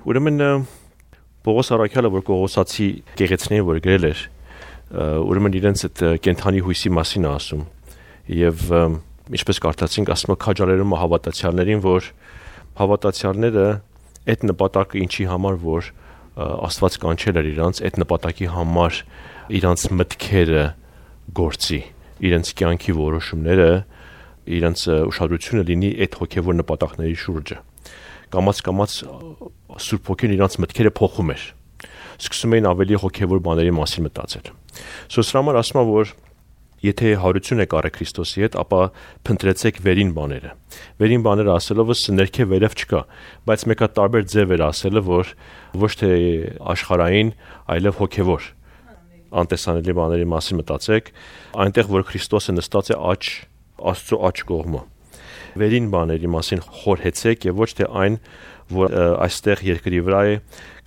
Ուրեմն Պողոս առաքյալը, որ Կողոսացի գեղեցիներին որ գրել էր, ուրեմն իրենց այդ կենթանի հույսի մասին է ասում եւ ինչպես կարդացինք, ասում է քաջալերում հավատացյալներին, որ հավատացյալները այդ նպատակը ինչի համար որ Աստված կանչել էր իրանց, այդ նպատակի համար իրանց մտքերը գործի, իրենց կյանքի որոշումները, իրենց ուշադրությունը լինի այդ հոգևոր նպատակների շուրջը։ Կամաց Սուրբ Հոգին իրանց մտքերը փոխում էր։ Սկսում էին ավելի հոգևոր բաների մասին մտածել։ Սրա համար ասում է, որ եթե հարություն եք արել Քրիստոսի հետ, ապա փնտրեցեք վերին բաները։ Վերին բաները ասելով ներքև վերև չկա, բայց մեկը տարբեր ձև էր ասելը, որ ոչ թե աշխարհային, այլև հոգևոր անտեսանելի բաների մասին մտածեք, այնտեղ որ Քրիստոսը նստած է Աստծո աջ կողմը։ Վերին բաների մասին խորհեցեք եւ ոչ թե այն, որ այստեղ երկրի վրա է,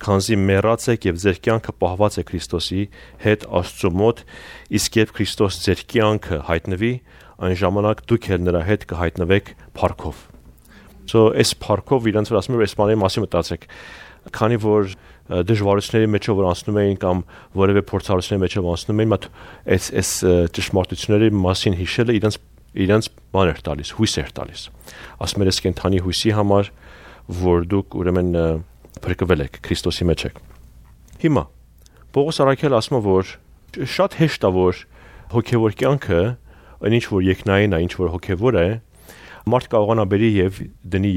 քանզի մեռած եք եւ ձեր կյանքը պահված է Քրիստոսի հետ Աստծո մոտ, իսկ երբ Քրիստոս ձեր կյանքը հայտնվի, այն ժամանակ դուք էլ նրա հետ կհայտնվեք փառքով։ Այս փառքով իրանց որ ասում եմ, այս բաների մասին մտածեք, քանի որ դժվարությունների մեջով որ անցնում էին կամ որևէ փորձառությունների մեջով անցնում էին, այս ճշմարտությունների մասին հիշելը իրենց բան էր տալիս, հույս էր տալիս։ Ասում էր, կենթանի հույսի համար, որ դուք ուրեմն փրկվել եք, Քրիստոսի մեջ եք։ Հիմա Պողոս առաքյալը ասում է, որ շատ հեշտ է, որ հոգևոր կյանքը, ինչ որ երկնային է, ինչ որ հոգևոր է, մարդ կարողանա բերի եւ դնի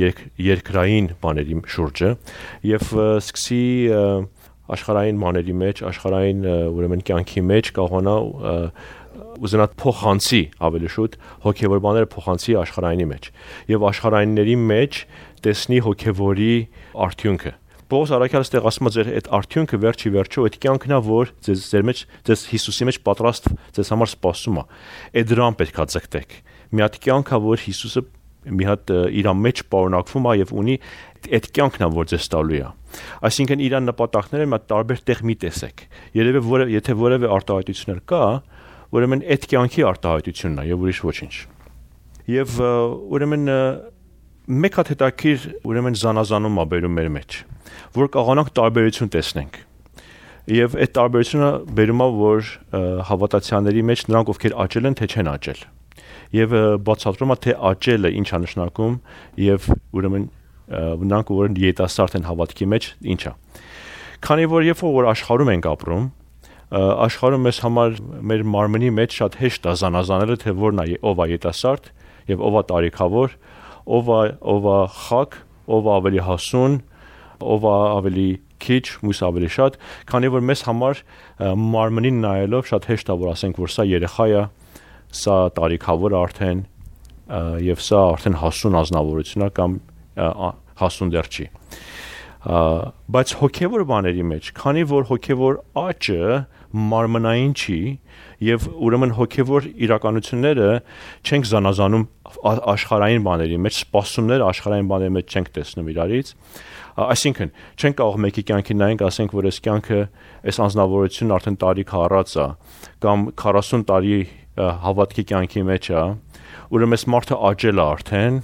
երկրային բաների շուրջը եւ սկսի աշխարհային բաների մեջ, աշխարհային ուրեմն կյանքի մեջ կարողանա ուզենա փոխանցի ավելի շուտ հոգևոր բաները փոխանցի աշխարհայինի մեջ եւ աշխարհայինների մեջ տեսնի հոգևորի արդյունքը։ Պողոս առաքյալը ստեղ ասում է, ձեր այդ արդյունքը վերջի վերջո այդ կյանքն է, որ ձեր մեջ, ձեզ Հիսուսի մեջ պատրաստ ձեզ համար սպասում է։ Այդ դրան պետք է ձգտեք։ Մի հատ կյանք է, որ Հիսուսը մի հատ իր մեջ պարունակվում է եւ ունի, այդ կյանքն է, որ ձեզ տալու է։ Այսինքն իր նպատակները մի տարբեր տեղ մի տեսեք։ Երևի եթե որևէ արտահայտություն կա, ուրեմն այդ կյանքի արտահայտությունն է եւ ուրիշ ոչինչ։ Եվ ուրեմն մեկ հատ հետաքրիր ուրեմն զանազանում է բերում մեր մեջ, որ կարողանանք տարբերություն տեսնենք։ Եվ այդ տարբերությունը բերում է, որ հավատացյալների մեջ նրանք ովքեր աճել են, թե չեն աճել։ Եվ բացատրում է, թե աճելը ինչ է նշանակում եւ ուրեմն նրանք որ երիտասարդ են հավատքի մեջ, ինչ է։ Քանի որ երբ որ աշխարհում ենք ապրում, աշխարհում մեզ համար մեր մարմնի մեջ շատ հեշտ է զանազանելը, թե որն է ով է երիտասարդ եւ ով է տարիքավոր, ով է խակ, ով է ավելի հասուն, ով է ավելի քիչ, մյուս ավելի շատ, քանի որ մեզ համար մարմնին նայելով շատ հեշտ է որ ասենք, որ սա երեխա է, սա տարիքավոր արդեն եւ սա արդեն հասուն ազնվորություն է կամ հասուն դեռ չի։ Բայց հոգևոր բաների մեջ, քանի որ հոգևոր աճը մարմնային չի եւ ուրեմն հոգևոր իրականությունները չենք զանազանում աշխարհային բաների մեջ, սպասումները աշխարհային բաների մեջ չենք տեսնում իրարից, այսինքն չենք կարող մեկի կյանքի նայենք, ասենք, որ այս կյանքը, այս անձնավորությունն արդեն տարիք առած է կամ 40 տարի հավատքի կյանքի մեջ է, ուրեմն այս մարդը աճել է արդեն,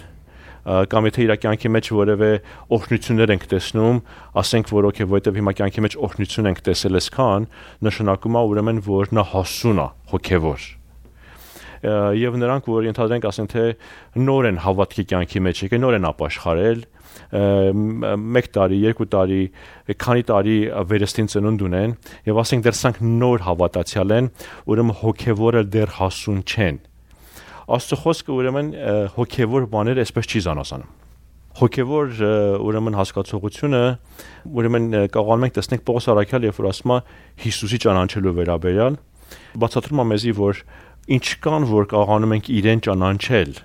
կամ եթե իր կյանքի մեջ որևէ օրհնություններ ենք տեսնում, ասենք որ օքեյ, որովհետև հիմա կյանքի մեջ օրհնություն ենք տեսել այսքան, նշանակում է ուրեմն որ նա հասուն է հոգևոր։ Եվ նրանք որ ենթադրենք ասենք թե նոր են հավատքի կյանքի մեջ եկել, նոր են ապաշխարել, 1 տարի, 2 տարի, քանի տարի վերստին ծնունդ ունեն եւ ասենք դեռ սրանք նոր հավատացյալ են, ուրեմն հոգևորը դեռ հասուն չեն։ Աստծո խոսքը ուրեմն հոգևոր բաները այսպես չի զանազանում։ Հոգևոր ուրեմն հասկացողությունը ուրեմն կարողանում ենք տեսնել Պողոս առաքյալը, երբ որ ասում է Հիսուսի ճանաչելու վերաբերյալ, բացատրում է մեզի, որ ինչքան որ կարողանում ենք իրեն ճանաչել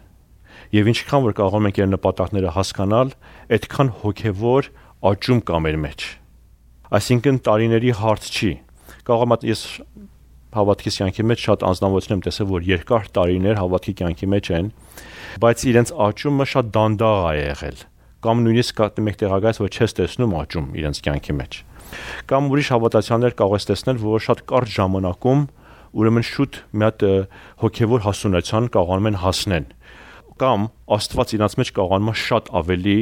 եւ ինչքան որ կարողանում ենք իր նպատակները հասկանալ, այդքան հոգևոր աճում կա մեր մեջ։ Այսինքն տարիների հարց չի։ Կարող եմ ես հավատքի կյանքի մեջ շատ անձնավորություն եմ տեսել, որ երկար տարիներ հավատքի կյանքի մեջ են, բայց իրենց աճումը շատ դանդաղ է եղել, կամ նույնիսկ մեկ տեղակայից, որ չես տեսնում աճում իրենց կյանքի մեջ։ Կամ ուրիշ հավատացյալներ կարող ես տեսնել, որ շատ կարճ ժամանակում ուրեմն շուտ մի հատ հոգևոր հասունության կարողանում են հասնել, կամ Աստված իրենց մեջ կարողանում է շատ ավելի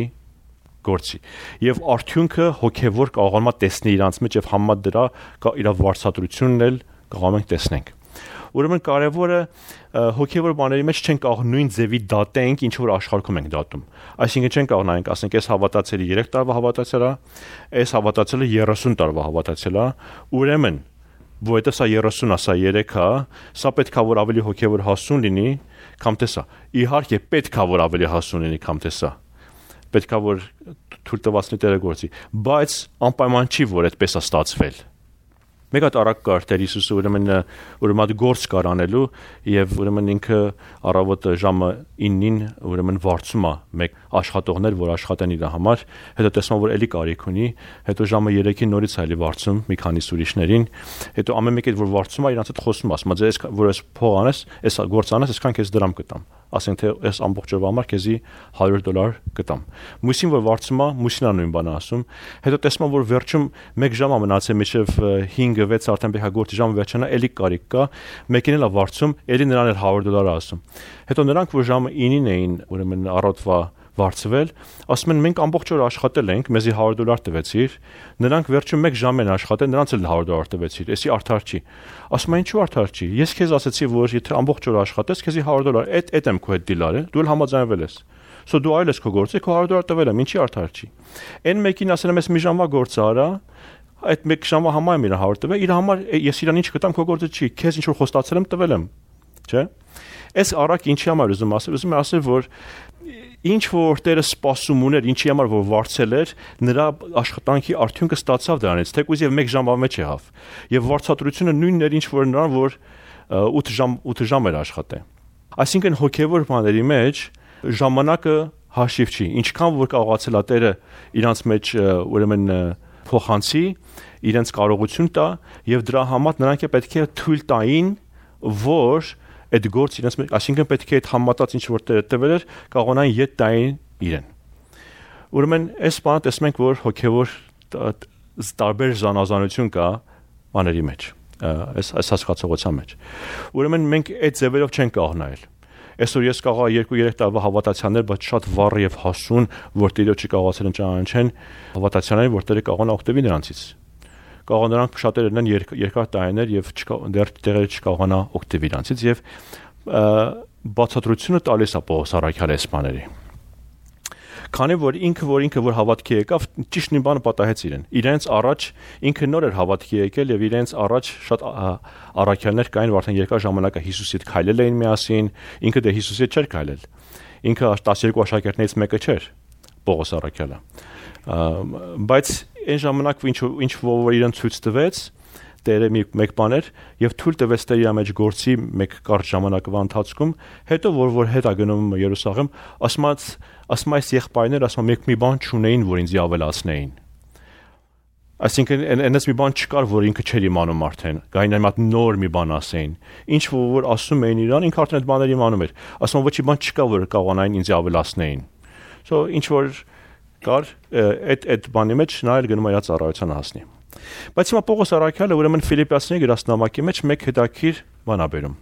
գործի եւ արդյունքը հոգեվոր կարողանա տեսնել իրանց մեջ եւ համա դրա իր վարչատրությունն էլ կարող ենք տեսնենք ուրեմն կարևորը հոգեվոր բաների մեջ չեն կարող նույն ձևի դատենք ինչ որ աշխարհում ենք դատում այսինքն չեն կարող նայենք ասենք այս հավատացյալը 3 տարվա հավատացյալ է այս հավատացյալը 30 տարվա հավատացյալ է ուրեմն որովհետև սա 30-ա, սա 3-ա, սա պետքա որ ավելի հոգևոր հասուն լինի, քան թե սա։ Իհարկե պետքա որ ավելի հասուն լինի, քան թե սա։ Պետքա որ թույլ տվածնի Տերը գործի, բայց անպայման չի որ այդպես է ստացվել։ Մեկ հատ արագ կար Տեր Հիսուսը ուրեմն գործ կար անելու եւ ուրեմն ինքը առավոտը ժամը 9-ին ուրեմն վարձում է մեկ աշխատողներ որ աշխատեն իր համար հետո տեսնում որ էլի կարիք ունի հետո ժամը 3-ին նորից այլի վարձում մի քանի ուրիշներին հետո ամեն մեկը որ վարձում է իրանց հետ խոսում ասում է ձեզ որ ես փող անես այս գործ անես այսքան քեզ դրամ կտամ ասենք թե այս ամբողջ օրվա համար քեզի $100 կտամ մուսին որ վարձում է մուսին է նույն բանը ասում հետո տեսնում որ վերջում 1 ժամ է մնացել մինչև 5-6 արդեն պետք է գործի ժամը վերջանա էլի կարիք կա մեկին էլ է վարձում էլի նրան էլ $100 ասում հետո նրանք որ ժամը 9-ին էին ուրեմն առավոտվա վարձվել ասում են մենք ամբողջ օր աշխատել ենք մեզի $100 տվեցիր նրանք վերջում 1 ժամ են աշխատել նրանց էլ $100 տվեցիր էսի արդար չի ասում են ինչու արդար չի ես քեզ ասացի որ եթե ամբողջ օր աշխատես քեզի $100 այդ եմ քո հետ դիլարը դու էլ համաձայնվել ես սո դու այլ ես քո գործը քո $100 տվել եմ ինչի արդար չի այն մեկին ասել եմ ես մի ժամվա գործ արա այդ 1 ժամվա համար եմ իր 100 տվել իր համար ես իրան ինչ կտամ քո գործը չի քեզ ինչ որ խոստացել եմ տվել եմ չէ այս առակ ինչի համար ուզում ասել որ ինչ որ Տերը սպասում ուներ ինչի համար որ վարձել էր նրա աշխատանքի արդյունքը ստացավ դրանից թեկուզ եւ 1 ժամվա մեջ եղավ եւ վարձատրությունը նույնն էր ինչ որ նրան որ 8 ժամ էր աշխատել այսինքն հոգեվոր բաների մեջ ժամանակը հաշիվ չի ինչքան որ կարողացել է Տերը իրանց մեջ ուրեմն փոխանցի իրենց կարողություն տա եւ դրա համար նրանք պետք է թույլ տային որ այդ գործ իրենց մեջ այսինքն պետք է այդ համատած ինչ որ տվել էր կարողանային յետ տային իրեն ուրեմն այս բանը տեսնում ենք որ հոգեվոր տարբեր զանազանություն կա բաների մեջ այս հասկացողության մեջ ուրեմն մենք այդ ձևերով չենք կարող նայել այսօր ես կարող 2-3 տարվա հավատացյալներ բայց շատ վառ եւ հասուն որ Տիրոջը կարողացել են ճանաչեն հավատացյալներ որ Տերը կարողանա օգտվի նրանցից կարող նրանք շատերն են երկար տարիներ եւ դեռ տեղերը չկարողանա օգտվել իրանցից եւ բացատրությունը տալիս է Պողոս առաքյալի այս բաների քանի որ ինքը որ հավատքի եկավ ճիշտ նույն բանը պատահեց իրենց առաջ ինքը նոր էր հավատքի եկել եւ իրենց առաջ շատ առաքյալներ կային որ արդեն երկար ժամանակ Հիսուսի հետ քայլել էին միասին ինքը դե Հիսուսի հետ չէր քայլել ինքը 12 աշակերտներից մեկը չէր Պողոս առաքյալը բայց այն ժամանակ ինչ որ իրեն ցույց տվեց Տերը մեկ բան էր եւ թույլ տվեց Տերը իր մեջ գործի մեկ կարճ ժամանակվա ընթացքում հետո որ հետ է գնում Երուսաղեմ ասում այս եղբայրներ ասում մեկ մի բան չունեին որ ինձ ավելացնեին այսինքն այնպես մի բան չկար որ ինքը չէր իմանում արդեն գային այն մատ նոր մի բան ասեին ինչ որ ասում էին իրան ինքը արդեն այդ բաները իմանում էր ասում ոչի բան չկա որ կարողանային ինձ ավելացնեին so ինչ որ կար այդ բանի մեջ նա էլ գնում է իր ծառայությանը հասնի բայց հիմա Պողոս առաքյալը ուրեմն Ֆիլիպպացիների գրասնամակի մեջ մեկ հետաքրքիր բան է բերում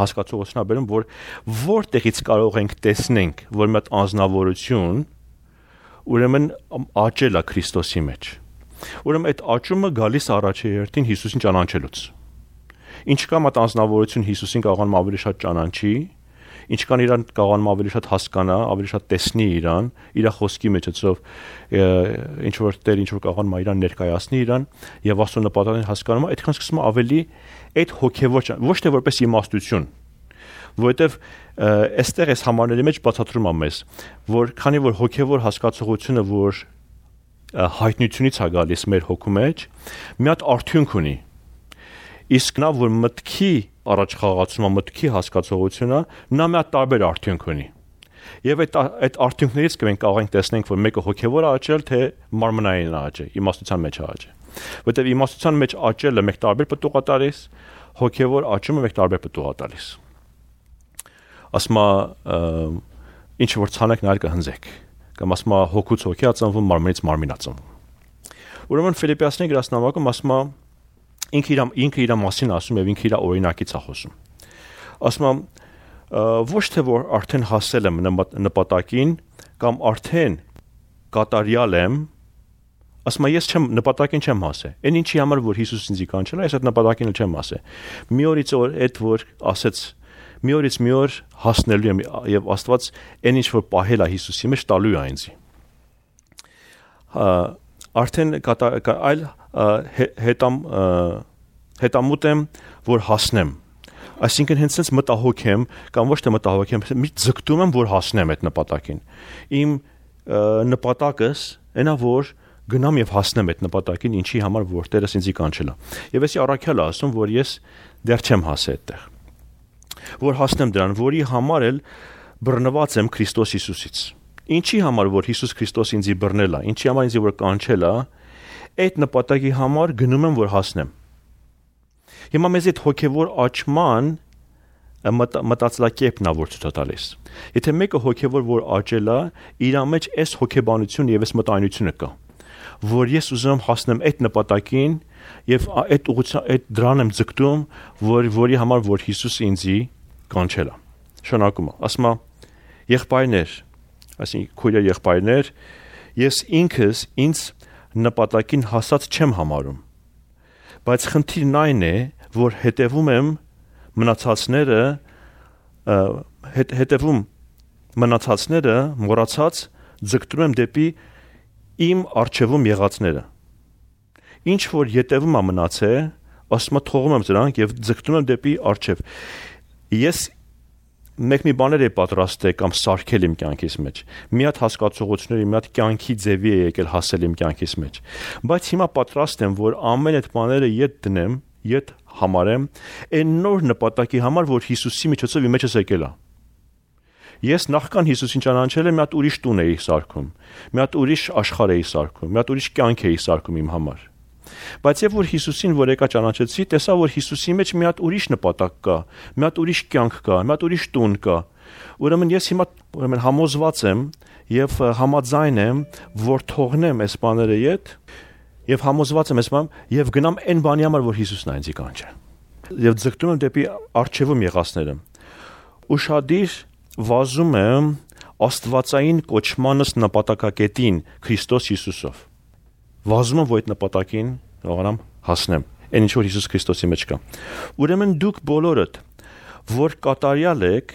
հասկացողություն է բերում որ որտեղից կարող ենք տեսնենք որ մի հատ անձնավորություն ուրեմն աճել է Քրիստոսի մեջ ուրեմն այդ աճումը գալիս առաջի հերթին Հիսուսին ճանաչելուց ինչքան մատ անձնավորություն Հիսուսին կարողանում ավելի շատ ճանաչի ինչքան իրան կարողանում ավելի շատ հասկանա, ավելի շատ տեսնի իրան, իր խոսքի մեջով ինչ որ Տեր ինչ որ կարողանում իրան ներկայացնի իրան եւ Աստծո նպատակին հասկանում, այդքան սկսում է ավելի այդ հոգեվոր ոչ թե որպես իմաստություն, որովհետեւ այստեղ այս համարների մեջ բացատրում է մեզ, որ քանի որ հոգեվոր հասկացողությունը որ հայտնությունից է գալիս մեր հոգու մեջ, մի հատ արդյունք ունի իսկ նա որ մտքի առաջ խաղացումը մտքի հասկացողությունը նա մի հատ տարբեր արդյունք ունի եւ այդ արդյունքներից մենք կարող ենք տեսնենք որ մեկը հոգեվոր աճել թե մարմնային աճել իմաստության մեջ աճել որտեղ իմաստության մեջ աճելը մեկ տարբեր պտուղ է տալիս հոգեվոր աճումը մեկ տարբեր պտուղ է տալիս ասма ինչ որ ցանեք նայել կհնձեք կամ ասма հոգուց հոգի է ծնվում մարմնից մարմին է ծնվում ուրեմն Ֆիլիպպացիների գրասնամակում ասма ինքը իր մասին ասում եւ ինքը իր օրինակից է խոսում ասում ոչ թե որ արդեն հասել եմ նպատակին կամ արդեն կատարյալ եմ, ասում ես չեմ նպատակին չեմ հասել։ Այն ինչի համար որ Հիսուս ինձ կանչել է, ես այդ նպատակին չեմ հասել։ Մի օրից օր այդ որ ասեց մի օրից մի օր հասնելու եմ եւ Աստված այն ինչ որ պահել է Հիսուսի մեջ տալու է ինձ։ Արդեն այլ հետամուտ եմ որ հասնեմ։ Այսինքն հենց այնպես մտահոգ եմ կամ ոչ թե մտահոգ եմ, մի ձգտում եմ որ հասնեմ այդ նպատակին։ Իմ նպատակս այնա որ գնամ եւ հասնեմ այդ նպատակին, ինչի համար որ Տերս ինձ կանչել է։ Եվ էսի առաքյալը ասում որ ես դեռ չեմ հասել այդտեղ։ Որ հասնեմ դրան, որի համար էլ բռնված եմ Քրիստոս Հիսուսից։ Ինչի համար որ Հիսուս Քրիստոս ինձ բռնել է, ինչի համար ինձ որ կանչել է, այդ նպատակի համար գնում եմ որ հասնեմ։ Հիմա մեզ այդ հոգևոր աճման մտածելակերպն է որ ցույց տալիս։ Եթե մեկը հոգևոր որ աճել է, իր մեջ այս հոգեբանությունը եւ այս մտայնությունը կա, որ ես ուզում եմ հասնեմ այդ նպատակին եւ այդ ուղղությամբ այդ դրան եմ ձգտում, որի համար որ Հիսուսը ինձ կանչել է։ Շնորհակում եմ։ Ասում եմ եղբայրներ, այսինքն քույրեր եղբայրներ, ես ինքս ինձ նպատակին հասած չեմ համարում։ Բայց խնդիրն այն է, որ հետևում եմ մնացածները մոռացած ձգտում եմ դեպի իմ արժևում եղածները։ Ինչ որ յետևում է մնացել, ասում եմ թողում եմ դրանք եւ ձգտում եմ դեպի արժև։ Ես մի բաներ եմ պատրաստել կամ սարքել իմ կյանքիս մեջ։ Մի հատ հասկացողությունների, մի հատ կյանքի ձևի է եկել հասել իմ կյանքիս մեջ։ Բայց հիմա պատրաստ եմ, որ ամեն այդ բաները յետ դնեմ, յետ համարեմ, այն նոր նպատակի համար, որ Հիսուսի միջոցով իմ մեջս եկել է։ Ես նախքան Հիսուսին ճանաչել եմ, մի հատ ուրիշ տուն էի սարքում, մի հատ ուրիշ աշխարհ էի սարքում, մի հատ ուրիշ կյանք էի սարքում իմ համար։ Բայց երբ որ Հիսուսին որ եկա ճանաչեցի, տեսա որ Հիսուսի մեջ մի հատ ուրիշ նպատակ կա, մի հատ ուրիշ կյանք կա, մի հատ ուրիշ տուն կա։ Ուրեմն ես հիմա համոզված եմ եւ համաձայն եմ, որ թողնեմ այս բաները յետ եւ համոզված եմ այս բան եւ գնամ այն բանի համար, որ Հիսուսն է ինձ կանչել։ Եվ ձգտում եմ դեպի արժևում եղածները։ Ուշադիր վազում եմ աստվածային կոչմանս նպատակակետին Քրիստոս Հիսուսով։ Վազում եմ որ այդ նպատակին կարողանամ հասնեմ։ Այն ինչ որ Հիսուս Քրիստոսի մեջ կա։ Ուրեմն դուք բոլորդ որ կատարյալ եք,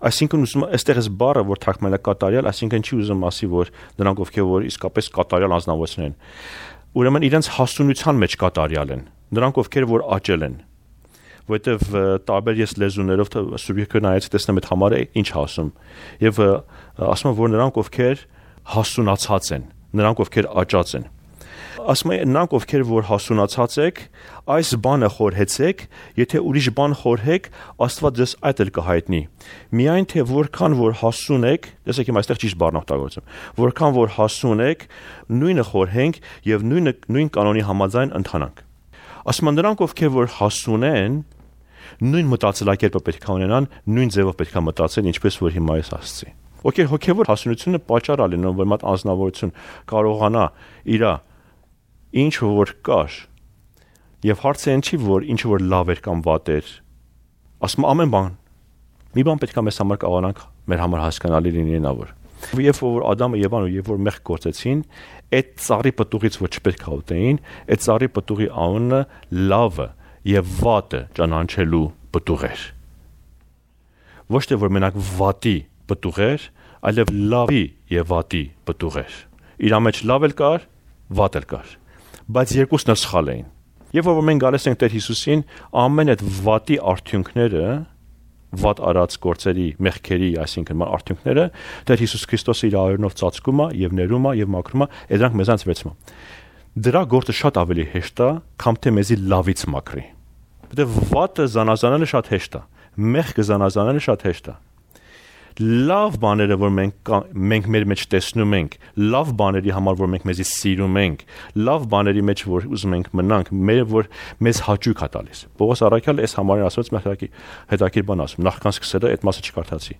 այսինքն ուզում այստեղ էս բառը որ թարգմանել է կատարյալ, այսինքն չի ուզում ասի որ նրանք ովքեր որ իսկապես կատարյալ անձնավորներ են։ Ուրեմն իրենց հասունության մեջ կատարյալ են։ Նրանք ովքեր որ աճել են։ Որտեվ տարբեր ես լեզուներով սուբյեկտը նայեցի տեսնեմ այդ համարը ինչ ասում։ Եվ ասում որ նրանք ովքեր հասունացած են, նրանք ովքեր աճած են։ Ասում են նրանք ովքեր որ հասունացած եք, այս բանը խորհեցեք, եթե ուրիշ բան խորհեք, Աստված ձեզ այդ էլ կհայտնի։ Միայն թե որքան որ հասուն եք, տեսեք իմ այստեղ ճիշտ բառն օգտագործում, որքան որ հասուն եք, նույնը խորհենք եւ նույն կանոնի համաձայն ընթանանք։ Ասում են նրանք ովքեր որ հասուն են, նույն մտածելակերպը պետք է ունենան, նույն ձևով պետք է մտածեն, ինչպես որ հիմա ես ասացի։ Հոգևոր հասունությունը պատճառ է լինում, որ մատ անձնավորություն կարողանա իր ինչ որ կար եւ հարցը այն չի որ ինչ որ լավ էր կամ վատ էր։ Ասում ամեն բան մի բան պետք է մեզ համար կարողանանք մեր համար հասկանալի լինի նա որ։ Երբ որ Ադամը Եվան ու երբ որ մեղք գործեցին, այդ ծառի պտուղից որ չպետք է ուտեին, այդ ծառի պտուղի անունը լավը եւ վատը ճանաչելու պտուղ էր։ Ոչ թե որ մենակ վատի պտուղ էր, այլև լավի եւ վատի պտուղ էր։ Իր մեջ լավ էլ կար, վատ էլ կար, բայց երկուսն էլ սխալ էին։ Եվ որ մենք գալիս ենք Տեր Հիսուսին, ամեն այդ վատի արդյունքները, վատ արած գործերի, մեղքերի, այսինքն արդյունքները, Տեր Հիսուս Քրիստոսը իր արյունով ծածկում է եւ ներում է եւ մաքրում է, դրանք մեզանց վերցնում։ Դրա գործը շատ ավելի հեշտ է, քան թե մեզի լավից մաքրի։ Որտեղ վատը զանազանելը շատ հեշտ է, մեղքը զանազանելը շատ հեշտ է։ Լավ բաները որ մենք մեր մեջ տեսնում ենք, լավ բաների համար որ մենք մեզի սիրում ենք, լավ բաների մեջ որ ուզում ենք մնանք, որ մեզ հաճույք է տալիս։ Պողոս առաքյալը այս համարին ասված հետաքրքիր բան ասում, նախքան սկսելը այդ մասը չկարդացի։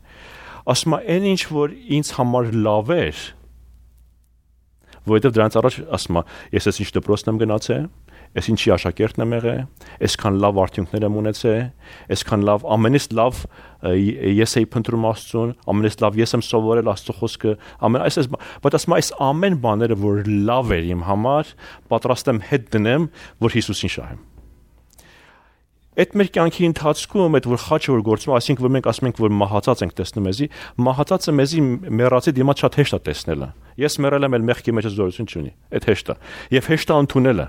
Ասում է այն ինչ որ ինձ համար լավ էր, Որովհետև դրանից առաջ ասում է, ես ես ինչ դպրոցն եմ գնացել, ես ինչի աշակերտն եմ եղել, այսքան լավ արդյունքներ եմ ունեցել, այսքան լավ, ամենից լավ ես էի փնտրում Աստծուն, ամենից լավ ես եմ սովորել Աստծո խոսքը, բայց ասում այս ամեն բաները, որ լավ էր իմ համար, պատրաստ եմ հետ դնեմ, որ Հիսուսին շահեմ։ Այդ մեր կյանքի ընթացքում այդ որ խաչը որ գործում, այսինքն որ մենք ասում ենք որ մահացած ենք տեսնում մեզի, մահացածը մեզի մեռածի դիմաց շատ հեշտ է տեսնելը։ Ես մեռել եմ, մեղքի մեջ զորություն չունի, այդ հեշտ է։ Եվ հեշտ է ընդունելը։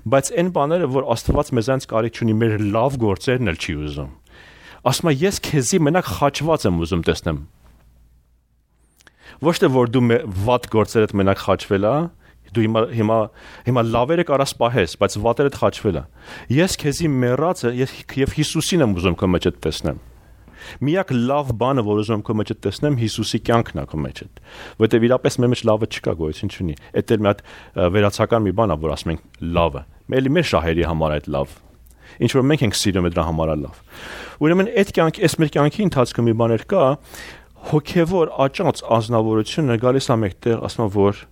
Բայց այն բաները, որ Աստված մեզանց կարիք չունի, մեր լավ գործերն էլ չի ուզում։ Ասում է ես քեզի մենակ խաչված եմ ուզում տեսնեմ։ Ոչ թե որ դու վատ գործերդ մենակ խաչվել ես, դու հիմա լավերը կարաս պահես, բայց վատերդ խաչվել է։ Ես քեզի մեռածը եւ Հիսուսին եմ ուզում քո մեջ տեսնեմ։ Միակ լավ բանը, որ ուզում եմ քո մեջ տեսնեմ, Հիսուսի կյանքն է քո մեջ։ Որտեւ իրապես մեր մեջ լավը չկա, գոյություն չունի։ Այդ էլ մի հատ վերացական մի բան է, որ ասում ենք լավը։ Մեր շահերի համար այդ լավ։ Ինչ որ մենք ենք սիրում դրա համար է լավ։ Ուրեմն այդ կյանքի, այս մեր կյանքի ընթացքում մի բաներ կա, հոգեվոր աճած ազնվորությունը գալիս է մեկտեղ, ասում որ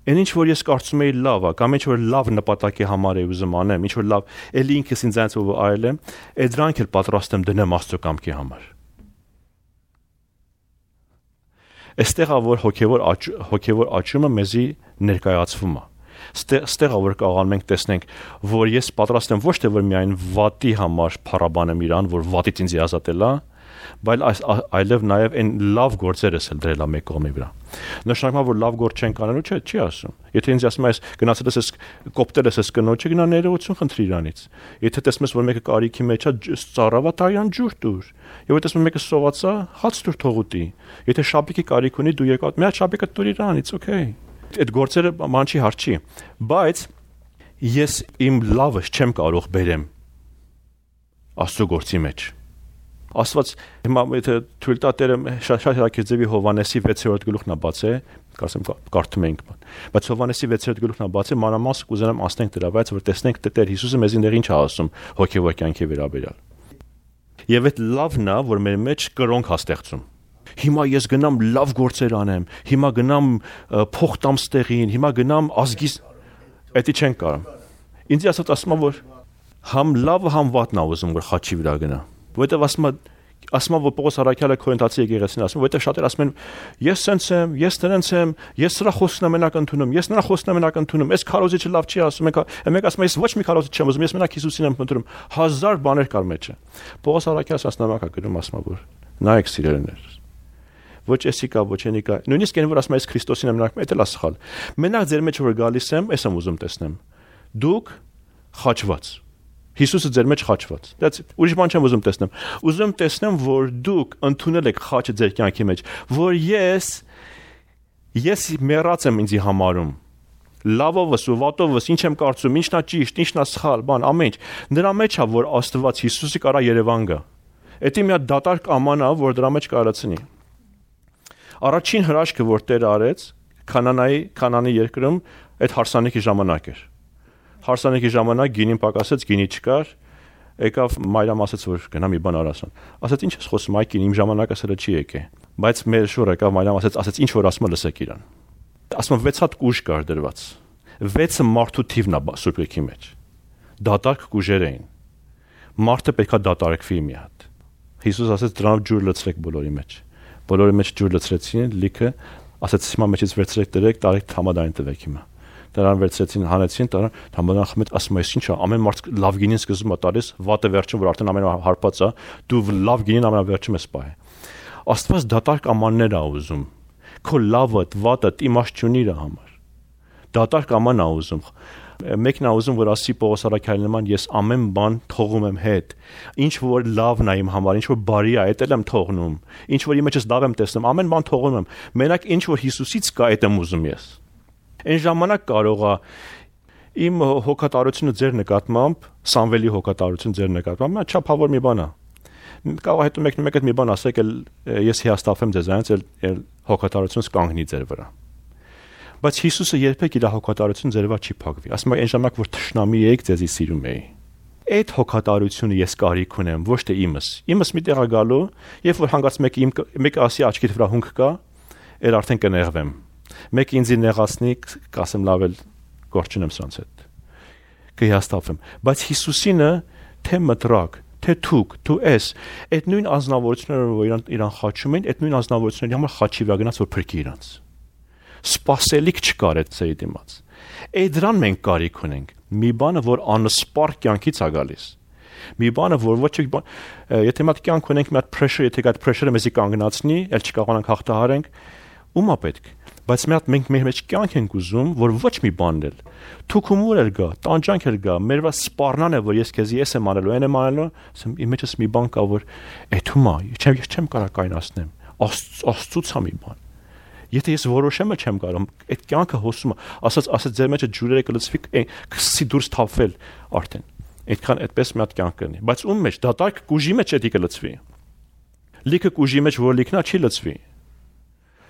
Այն ինչ որ ես կարծում եի լավ է, կամ ինչ որ լավ նպատակի համար եմ ուզում անեմ, ինչ որ լավ, էլի ինքս ինձ ով արել եմ, այդ դրանք էլ պատրաստ եմ դնեմ Աստծո կամքի համար։ Այստեղ է որ հոգևոր աճումը մեզի ներկայացվում է։ Այստեղ է որ կարող ենք տեսնենք, որ ես պատրաստ եմ ոչ թե որ միայն վատի համար փառաբանեմ իրան, որ վատից ինձ ազատել է, այլև նաև այն լավ գործերս էլ դրել է մեկ կողմի վրա։ Նշանակում է որ լավ գործ չեն կանելու, չի ասում։ Եթե ինձ ասում ես գնացել ես կոպտել ես կնոջը, գնա ներողություն խնդրի իրանից։ Եթե տեսնում ես որ մեկը կարիքի մեջ է, ծառավա տարյան ջուր տուր։ Եվ եթե տեսնում ես մեկը սովածա, հաց տուր թողուտի։ Եթե շապիկի կարիք ունի, դու եկա, մի հատ շապիկը տուր իրանից, օքեյ։ Այդ գործերը ման չի հարց չի, բայց ես իմ լավը չեմ կարող բերեմ Աստծո գործի մեջ։ Աստված հիմա եթե թույլ տա Տերը շատ հրակերձեւի Հովանեսի 6-րդ գլուխն է բացել, կարծեմ կարդում ենք բան։ Բայց Հովանեսի 6-րդ գլուխն է բացել, մանրամասն կուզենամ ասենք դրա, բայց որ տեսնենք Տեր Հիսուսը մեզ ինչ է ասում հոգեվոր կյանքի վերաբերյալ։ Եվ այդ լավն է, որ մեր մեջ կրոնք է ստեղծում։ Հիմա ես գնամ լավ գործեր անեմ, հիմա գնամ փող տամ ստեղին, հիմա գնամ ազգիս, դա չեն կարող։ Ինձ ասում է որ համ լավը համ վատն է ուզում որ խաչի վրա գնա։ Որտեւ ասում որ Պողոս Արաքյալը Կորինթացի եկեղեցին ասում, որտեւ շատեր ասում են ես սենց եմ, ես դրանց եմ, ես սրա խոսքն եմ մենակ ընդունում, ես նրա խոսքն եմ մենակ ընդունում, այս քարոզիչը լավ չի ասում, մեկ ասում ես ոչ մի քարոզիչ չեմ ուզում, ես մենակ Հիսուսին եմ ընդունում, հազար բաներ կար մեջը։ Պողոս Արաքյալը ասնամակա գրում ասում որ նայեք սիրելիներ։ Ոչ էսի կա, ոչ ենի կա։ Նույնիսկ այն որ ասում ես Քրիստոսին եմ նայում, դա էլ է սխալ։ Մենակ ձեր մեջ որ գալիս եմ, ես եմ ուզում տեսնեմ։ Դուք խաչված Հիսուսը ձեր մեջ խաչված։ That's it։ Ուրիշ բան չեմ ուզում տեսնեմ։ Ուզում տեսնեմ, որ դուք ընդունել եք խաչը ձեր կյանքի մեջ, որ ես մեռած եմ ինձի համարում։ Լավովս ու վատովս ինչ եմ կարծում, ինչն է ճիշտ, ինչն է սխալ, բան, ամեն ինչ։ Նրա մեջ է, որ Աստված Հիսուսի կարա Երևան գա։ Դա մի հատ դատարկ աման է, որ դրա մեջ կարացնի։ Առաջին հրաշքը, որ Տերը արեց Քանանի երկրում, այդ հարսանիքի ժամանակ էր։ Հարսանիքի ժամանակ գինին պակասեց, գինի չկար, եկավ մայրամ ասաց որ գնա մի բան արասան։ Ասաց ինչ ես խոսում, այ կին իմ ժամանակը սրա չի եկե։ Բայց մեր շուռ եկավ մայրամ ասաց ինչ որ ասում լսեք իրան։ Ասում 6 հատ կուժ կար դրված։ 6-ը մարդու թիվն է Սուրբ Գրքի մեջ։ Դատարկ կուժեր էին։ Մարդը պետքա դատարակվի մի հատ։ Հիսուս ասաց դրանով ջուր լցրեք բոլորի մեջ։ Բոլորի մեջ ջուր լցրեցին, լիքը ասաց հիմա մեջից վերցրեք դրեք, տարեք համադային տվեք հիմա։ Դրան վերցրեցին, հանեցին, դրան համադան խմեց, ասում ես ինչա, ամեն մարդ լավ գինին սկզբում է տալիս, վատը վերջում որ արդեն ամեն հարբած է, դու լավ գինին ամենավերջում ես պահի։ Աստված դատարկ ամաններ է ուզում։ Քո լավը, վատը իմաստ չունի իր համար։ Դատարկ աման է ուզում։ Մեկն է ուզում որ ասի Պողոս Արաքյալի նման ես ամեն բան թողում եմ հետ։ Ինչ որ լավն է իմ համար, ինչ որ բարի է, դա էլ եմ թողնում։ Ինչ որ իմ մեջս լավ եմ տեսնում, ամեն բան թողում եմ։ Մենակ ինչ որ Հիսուսից կա, դա եմ ուզում ես։ Այն ժամանակ կարող է իմ հոգատարությունը ձեր նկատմամբ, Սամվելի հոգատարությունը ձեր նկատմամբ, չափավոր մի բան է։ Կարող է հետո մեկ մի բան ասեք, ես հիասթափեմ ձեզանից, էլ հոգատարությունս կանգնի ձեր վրա։ Բայց Հիսուսը երբեք իր հոգատարությունը ձեր վրա չի փակվի։ Ասում է այն ժամանակ որ թշնամի եք, ձեզի սիրում էի։ Այդ հոգատարությունը ես կարիք ունեմ, ոչ թե իմս։ Իմս մի տեղ է գալու, երբ որ հանգած մեկը ասի աչքիդ վրա հունք կա, էլ արդեն կներվեմ։ Մեկ ինձ նեղացնի, կասեմ լավ էլ գործ չունեմ սրանց հետ։ Կհիասթափվեմ, բայց Հիսուսինը թե մտրակ, թե դու ես, այդ նույն ազնվորությունները, որ իրան խաչում են, այդ նույն ազնվորությունների համար խաչի վրա գնաց, որ փրկի իրանց։ Սպասելիք չկար այդ ծերի դիմաց։ Այդ դրան մենք կարիք ունենք։ Մի բանը, որ անսպառ կյանքից է գալիս։ Մի բանը, որ ոչ եթե մի հատ կյանք ունենք, մի հատ pressure, եթե այդ pressure-ը մեզի կանգնացնի, ել չկարողանանք հաղթահարենք, ումա պետք։ Բայց մի հատ մենք մեր մեջ կյանք ենք ուզում, որ ոչ մի բան էլ թուքումուր էլ գա, տանջանք էլ գա, մեր վրա սպառնան է, որ ես քեզ եմ անելու, այն եմ անելու, ասեմ իմ մեջս մի բան կա, որ էթումա, չեմ կարող կայնացնեմ, աստծուց է մի բան։ Եթե ես որոշեմ էլ չեմ կարող, այդ կյանքը հոսում է, ասած ձեր մեջը ջուրերը կլցվի, կսի դուրս թափվել արդեն։ Այդքան այդպես մի հատ կյանք կլինի, բայց ում մեջ դատարկ կուժի մեջ էդի կլցվի։ Լիքը կուժի մեջ որ լիքնա չի լցվի։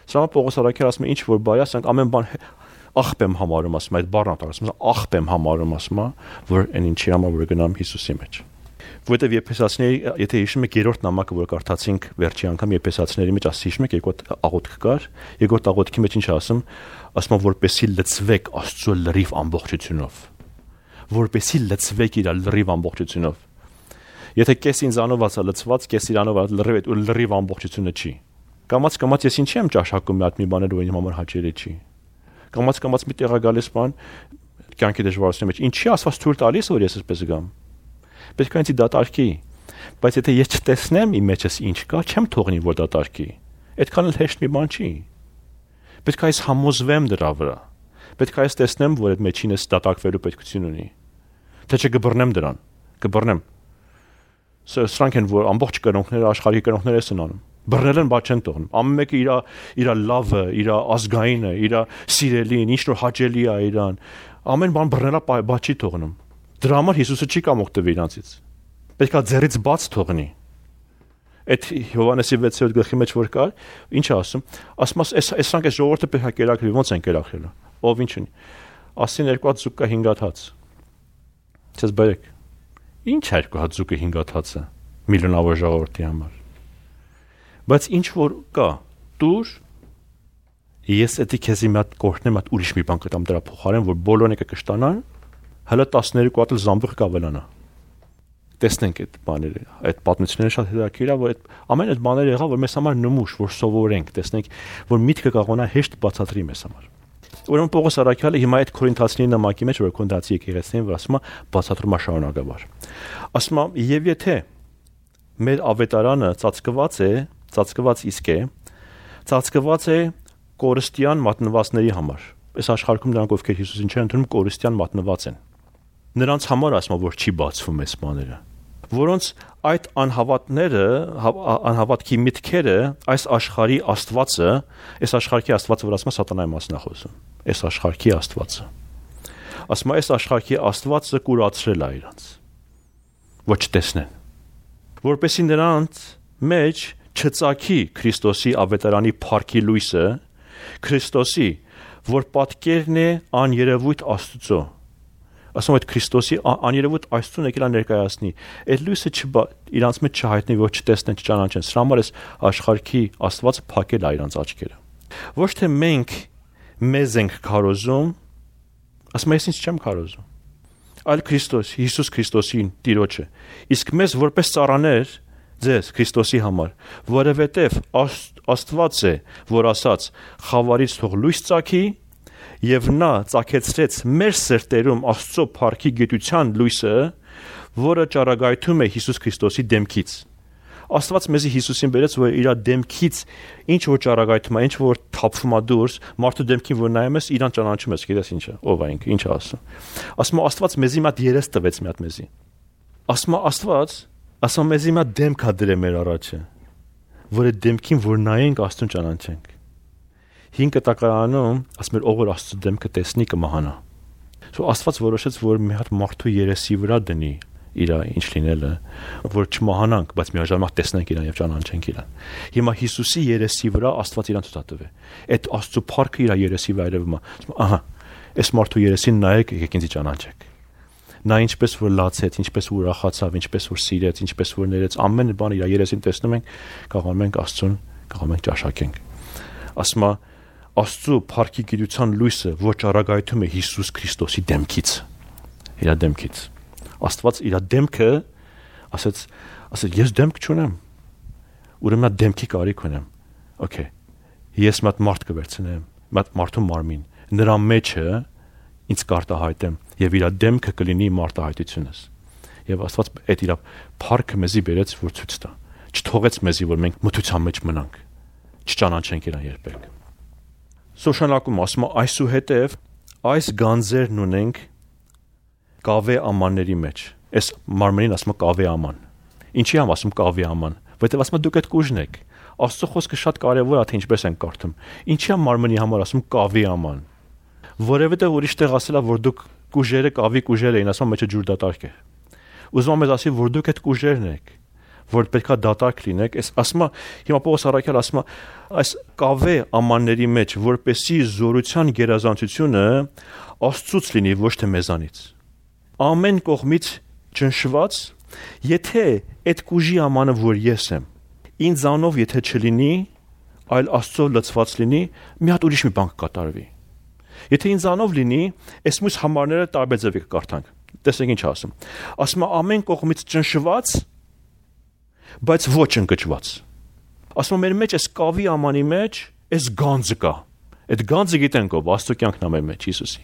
Սա Պողոս Արաքյալը ասում է ինչ որ բայ ասենք ամեն բան աղբ եմ համարում ասում այդ բառն ասում աղբ եմ համարում ասում որ այն ինչի համար որ գնամ Հիսուսի մեջ։ Որտեվ Եփեսացիների եթե հիշում եք երրորդ նամակը որ կարդացինք վերջի անգամ Եփեսացիների մեջ հիշում եք երկրորդ աղոթք կար, երկրորդ աղոթքի մեջ ինչ ասում որպեսի լցվեք Աստծո լրիվ ամբողջությունով։ Որպեսի լցվեք իր լրիվ ամբողջությունով։ Եթե կես ինձանով ասա լցված, կես իրանով լրիվ ամբողջությունը չի։ Կամաց ես ինչի եմ ճաշակում մի հատ մի բաներ որ իմ համար հաճելի չի։ Կամաց մի տեղա գալիս բան կյանքի դժվարությունների մեջ ինչի ասված թույլ տալիս որ ես այսպես գամ։ Պետք է ինձ դատարկի։ Բայց եթե ես չտեսնեմ իմ մեջս ինչ կա, չեմ թողնի որ դատարկի։ Այդքան էլ հեշտ մի բան չի։ Պետք է այս համոզվեմ դրա վրա։ Պետք է այս տեսնեմ որ այդ մեջինս դատարկվելու պետքություն ունի։ Թե չգբռնեմ դրան, կբռնեմ։ Սրանք են որ ամբողջ կրոնքները աշխարհի կրոնքները են անում։ Բռնել են, բայց չեն թողնում։ Ամեն մեկը իր լավը, իր ազգայինը, իր սիրելին, ինչ որ հաճելի է իրան։ Ամեն բան բռնելա, բայց չի թողնում։ Դրա համար Հիսուսը չի կամ օգտվի իրանցից։ Պետք է ձեռից բաց թողնի։ Այդ Հովհաննեսի 6-րդ գլխի մեջ որ կար, ինչ է ասում։ Ասում սրանք է ժողովուրդը պետք է կերակրի, ո՞նց են կերակրելու։ Ով ինչ ունի։ Ասին 2 հատ զուգ կա 5 հատ հաց։ Չես բերեք։ Ինչ 2 հատ զուգը 5 հատ հացը միլիոնավոր ժողովրդի համար։ Բայց ինչ որ կա, դուր ես էդի քեզի մի հատ կորտնեմ, հատ ուրիշ մի բան կտամ դրա փոխարեն, որ բոլորն եկը կշտանան, հələ 12 հատ զամբյուղ կավելանա։ Տեսնենք այդ բաները, այդ պատմությունները շատ հետաքրքիր է, որ այդ ամեն այդ բաները եղավ, որ մեզ համար նմուշ, որ սովորենք, տեսնենք, որ միտքը կարողանա հեշտ բացատրի մեզ համար։ Ուրեմն Պողոս Արաքյալը հիմա այդ Կորինթացիների նամակի մեջ, որ Կորինթացի եկեղեցին, որ ասում է բացատրում է շարունակաբար։ Ասում է, եւ եթե մեր ավետարանը ծածկված իսկ է, ծածկված է կորստյան մատնվածների համար։ Այս աշխարհում նրանք ովքեր Հիսուսին չեն ընդունում, կորստյան մատնված են։ Նրանց համար ասում որ չի բացվում այս բաները, որոնց այդ անհավատքի միտքերը այս աշխարհի Աստվածը, այս աշխարհի Աստվածը, որ ասում է սատանայի մասն է խոսում, այս աշխարհի Աստվածը։ Ասում է այս աշխարհի Աստվածը կուրացրել է իրանց, ոչ տեսնեն, որպեսզի նրանց մեջ չծագի Քրիստոսի ավետարանի փառքի լույսը, Քրիստոսի, որ պատկերն է աներևույթ Աստծո։ Ասում այդ Քրիստոսի աներևույթ Աստծուն եկել է ներկայացնի։ Այդ լույսը իրանց մեջ չհայտնի, որ չտեսնեն, չճանաչեն։ Սրա համար էս աշխարհի Աստվածը փակել է իրանց աչքերը։ Ոչ թե մենք մեզ ենք քարոզում, ասում ես ինձ չեմ քարոզում, այլ Քրիստոս, Հիսուս Քրիստոսին Տիրոջը։ Իսկ մեզ որպես ծառաներ ձեզ Քրիստոսի համար, որովհետև Աստված է, որ ասաց. «Խավարից թող լույս ծագի», եւ նա ծագեցրեց մեր սրտերում Աստծո փառքի գիտության լույսը, որը ճառագայթում է Հիսուս Քրիստոսի դեմքից։ Աստված մեզի Հիսուսին բերեց, որ իր դեմքից ինչ որ ճառագայթում է, ինչ որ թափվում է դուրս, մարդու դեմքին որ նայում ես, իրան ճանաչում ես, գիտես ինչ է, ով է ինքը, ինչ է ասում։ Ասում Աստված մեզի մի հատ երես տվեց մի հատ մեզի։ Ասում մեզի մի հատ դեմք է դրել մեր առաջը, որ այդ դեմքին որ նայենք Աստծուն ճանաչենք։ 5 կտակարանում ասում էր ով որ Աստծո դեմքը տեսնի կմահանա։ Աստված որոշեց որ մի հատ մարդու երեսի վրա դնի իր ինչ լինելը, որ չմահանանք, բայց միաժամանակ տեսնենք իրան եւ ճանաչենք իրան։ Հիմա Հիսուսի երեսի վրա Աստված իրան ցույց տվե։ Այդ Աստծո փառքը իր երեսի վրա երևում է։ Ահա, այս մարդու երեսին նայեք, եկեք ինձ ճանաչեք։ Նա ինչպես որ լացեց, ինչպես որ ուրախացավ, ինչպես որ սիրեց, ինչպես որ ներեց, ամեն բան իր երեսին տեսնում ենք, կարողանում ենք Աստծուն, կարողանում ենք ճաշակենք։ Ասում է Աստծո փառքի գիտության լույսը ոչ արագայթում է Հիսուս Քրիստոսի դեմքից, իր դեմքից։ Աստված իր դեմքը ասաց ես դեմք չունեմ, ուրեմն դեմքի կարիք ունեմ։ Okay, ես մատ մարդ կվերցնեմ, մատ մարդու մարմին, նրա մեջը ինձ կարտահայտեմ եւ իր դեմքը կլինի մարտահայտությունս։ Եվ Աստված այդ իր փառքը մեզի բերեց, որ ցույց տա, չթողեց մեզի, որ մենք մթության մեջ մնանք, չճանաչենք իրան երբեք։ Սոշանակում ասում է այսուհետև այս գանձերն ունենք կավե ամանների մեջ։ Այս մարմնին ասում է կավե աման։ Ինչի եմ ասում կավե աման, որտեղ ասում է դուք այդ կուժն եք։ Աստծո խոսքը շատ կարևոր է, թե ինչպես ենք կարդում։ Ինչի է մարմնի համար ասում կավի աման։ Որևէտեղ ուրիշ տեղ ասելա, որ դուք կուժերը կավի կուժեր էին, ասում մեջը ջուր դատարկ է։ Ուզում եմ ասի, որ դուք այդ կուժերն եք, որ պետքա դատարկ լինեք։ Այս ասում է, հիմա Պողոս առաքյալ ասում է, այս կավե ամանների մեջ, որպեսի զորության գերազանցությունը Աստծուց լինի, ոչ թե մեզանից։ Ամեն կողմից ճնշված, եթե այդ կուժի ամանը, որ ես եմ, ինձանով եթե չլինի, այլ Աստծո լցված լինի, մի հատ ուրիշ մի բան կկատարվի։ Եթե ինձանով լինի, այս մյուս համարները տարբեր ձևի կկարդանք։ Տեսեք ինչ ասում։ Ասում է ամեն կողմից ճնշված, բայց ոչ ընկճված։ Ասում է մեր մեջ այս կավի ամանի մեջ այս գանձը կա։ Այդ գանձը գիտենք ով, Աստծո կյանքն է մեր մեջ Հիսուսի։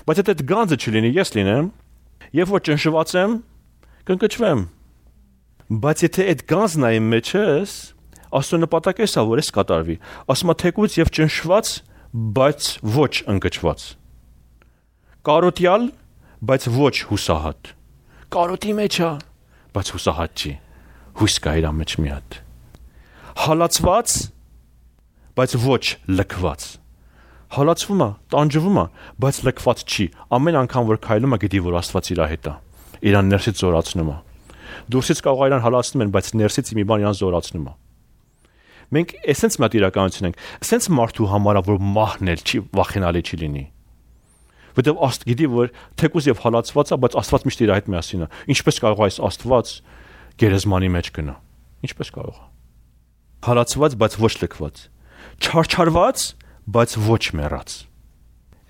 Բայց եթե այդ գանձը չլինի, ես լինեմ, եւ որ ճնշված եմ, կընկճվեմ։ Բայց եթե այդ գանձն է իմ մեջս, Աստծո նպատակը է, որ ես կատարվի։ Ասում է թեկուց եւ ճնշված, բայց ոչ ընկճված։ Կարոտյալ, բայց ոչ հուսահատ։ Կարոտի մեջ է, բայց հուսահատ չի։ Հույս կա իր մեջ մի հատ։ Հալածված, բայց ոչ լքված։ Հալածվում է, տանջվում է, բայց լքված չի։ Ամեն անգամ որ քայլում է, գիտի որ Աստված իր հետ է։ Իրան ներսից զորացնում է։ Դուրսից կարող իրան հալածնում են, բայց ներսից մի բան իրան զորացնում է։ Մենք էսենց մատ իրականություն ենք, էսենց մարդու համար որ մահնել չի, վախենալի չի լինի։ Որտեւ Աստված գիտի որ թեկուզ եւ հալածված է, բայց Աստված միշտ իր հետ միասին է։ Ինչպես կարող է այս Աստված գերեզմանի մեջ գնա։ Ինչպես կարող է։ Հալածված, բայց ոչ լքված։ Չարչարված, բայց ոչ մեռած։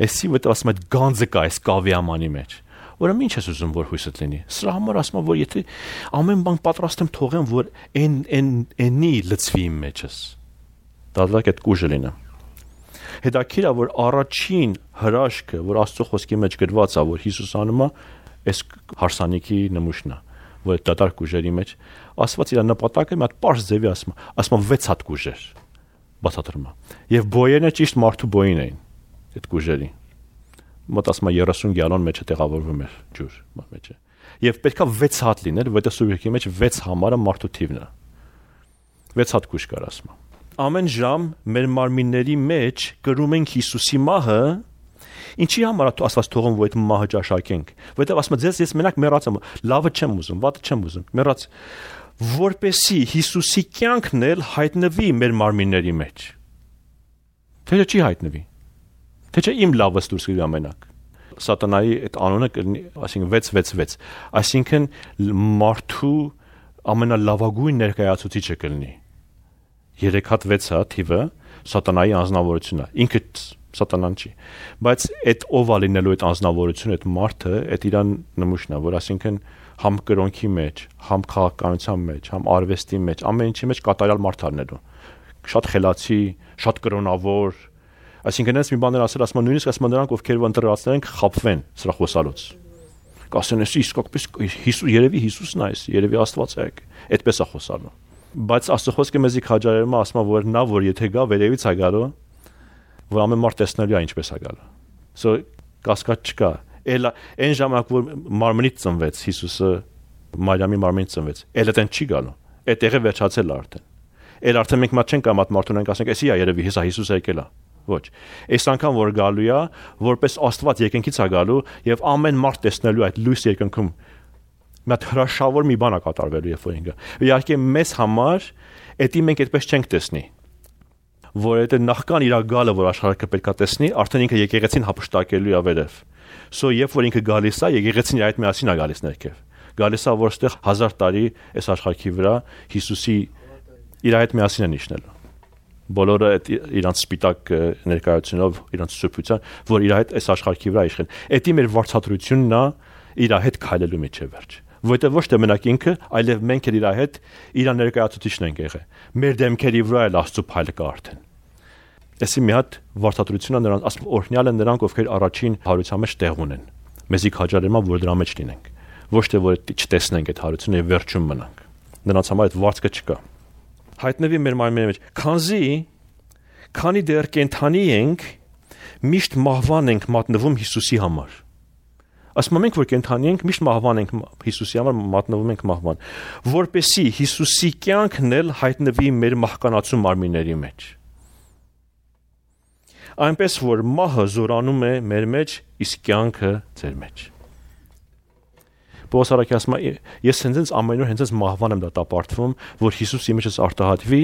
Էսի որտեղ ասում է գանձը կա այս կավի ամանի մեջ։ Ուրեմն ինչ ես ուզում որ հույսդ լինի։ Սրա համար ասում եմ որ եթե ամեն բան պատրաստ եմ թողեմ որ այնի լծվի իմ մեջս։ Դալակ այդ կուժը լինի։ Հետաքրքիր է որ առաջին հրաշքը որ Աստծո խոսքի մեջ գրված է որ Հիսուս անում է այս հարսանիքի նմուշն է որ դատարկ կուժերի մեջ Աստված իր նպատակը մի հատ པարզ ձևի ասում է 6 հատ կուժեր բացատրում է եւ բոյերն ճիշտ մարդու բոյին էին այդ կուժերի մոտ ասում է 30 գալոն մեջը տեղավորվում էր ջուր մեջը եւ պետքա 6 հատ լիներ որտեղ սուրբի մեջ 6 համարը մարդու թիվն է 6 հատ կուժ կար ասում ամեն ժամ մեր մարմինների մեջ կրում ենք Հիսուսի մահը ինչի համար է Աստված թողում որ այդ մահը ճաշակենք որտեղ ասում է ես մենակ մեռած եմ լավը չեմ ուզում վատը չեմ ուզում մեռած որպեսի Հիսուսի կյանքն էլ հայտնվի մեր մարմինների մեջ թե չի հայտնվի թե չէ իմ լավս դուրս գա մենակ սատանայի այդ անունը կլինի այսինքն 666 այսինքն մարդու ամենալավագույն ներկայացուցիչը կլինի 3 հատ 6 հատ թիվը սատանայի անձնավորությունն է ինքը սատանան չի բայց այդ ով է լինելու այդ անձնավորությունը այդ մարդը այդ իրան նմուշն է որ այսինքն համ կրոնքի մեջ համ քաղաքականության մեջ համ արվեստի մեջ ամեն ինչի մեջ կատարյալ մարդ առնելու շատ խելացի շատ կրոնավոր այսինքն այս մի բաներ ասում են նույնիսկ ասում նրանք ովքեր ընտրվածներ են խապվեն սրա խոսալուց կասեն իսկապես Հիսուս երևի Հիսուսն է երևի Աստված է այդպես է խոսալու բայց Աստծո խոսքը մեզի քաջարերում ասում է որ նա որ եթե գա վերևից է գալու որ ամեն մարդ տեսնելու է ինչպես է գալու so կասկած չկա էլ այն ժամանակ որ մարմնից ծնվեց Հիսուսը Մարիամի մարմնից ծնվեց էլ այդեն չի գալու այդ տեղը վերջացել է արդեն էլ արդեն մենք մատ չենք կամատ մարդուն ենք ասենք էսի է երևի հեսա Հիսուսը եկել է ոչ այս անգամ որ գալու է որպես Աստված երկնքից է գալու եւ ամեն մարդ տեսնելու այդ լույս երկնքում մատ հրաշավոր մի բան է կատարվելու երբ որ ինքը իհարկե մեզ համար էդի մենք այդպես չենք տեսնի որ այդ նախքան իր գալը որ աշխարհը պետքա տեսնի արդեն ինքը եկեղեցին հապշտակելու է վերև so երբ որ ինքը գալիս է եկեղեցին իր այդ միասին է գալիս ներքև գալիս է որ այստեղ 1000 տարի այս աշխարհի վրա Հիսուսի իր այդ միասին է նշնելու Բոլորը այդ իրանց սպիտակ ներկայությունով, իրանց սուրբության, որ իր հետ այս աշխարհի վրա իշխեն։ Էդի մեր վարձատրությունն է իր հետ քայլելու մեջ է վերջ։ Որտեղ ոչ թե մենակ ինքը, այլև մենք էլ իր հետ իր ներկայացուցիչն ենք եղել։ Մեր դեմքերի վրա էլ Աստծո փայլը կա արդեն։ Այսի մի հատ վարձատրությունը նրանց ասում օրհնյալ են նրանք, ովքեր առաջին հարության մեջ տեղ ունեն։ Մեզի քաջալերում որ դրա մեջ լինենք։ Ոչ թե որ չտեսնենք այդ հարությունը եւ վերջում մնանք։ Նրանց համար այդ վարձքը չկա։ Հայտնվի մեր մարմինի մեջ, քանի դեռ կենթանի ենք, միշտ մահվան ենք մատնվում Հիսուսի համար։ Ասում ենք, որ կենթանի ենք, միշտ մահվան ենք Հիսուսի համար մատնվում ենք մահվան, որպեսզի Հիսուսի կյանքն էլ հայտնվի մեր մահկանացու մարմինների մեջ։ Այնպես որ մահը զորանում է մեր մեջ, իսկ կյանքը ձեր մեջ։ Պողոս առաքյալը ասում է, ես հենց ամեն օր հենց մահվան եմ դատապարտվում, որ Հիսուս իմ մեջս արտահայտվի,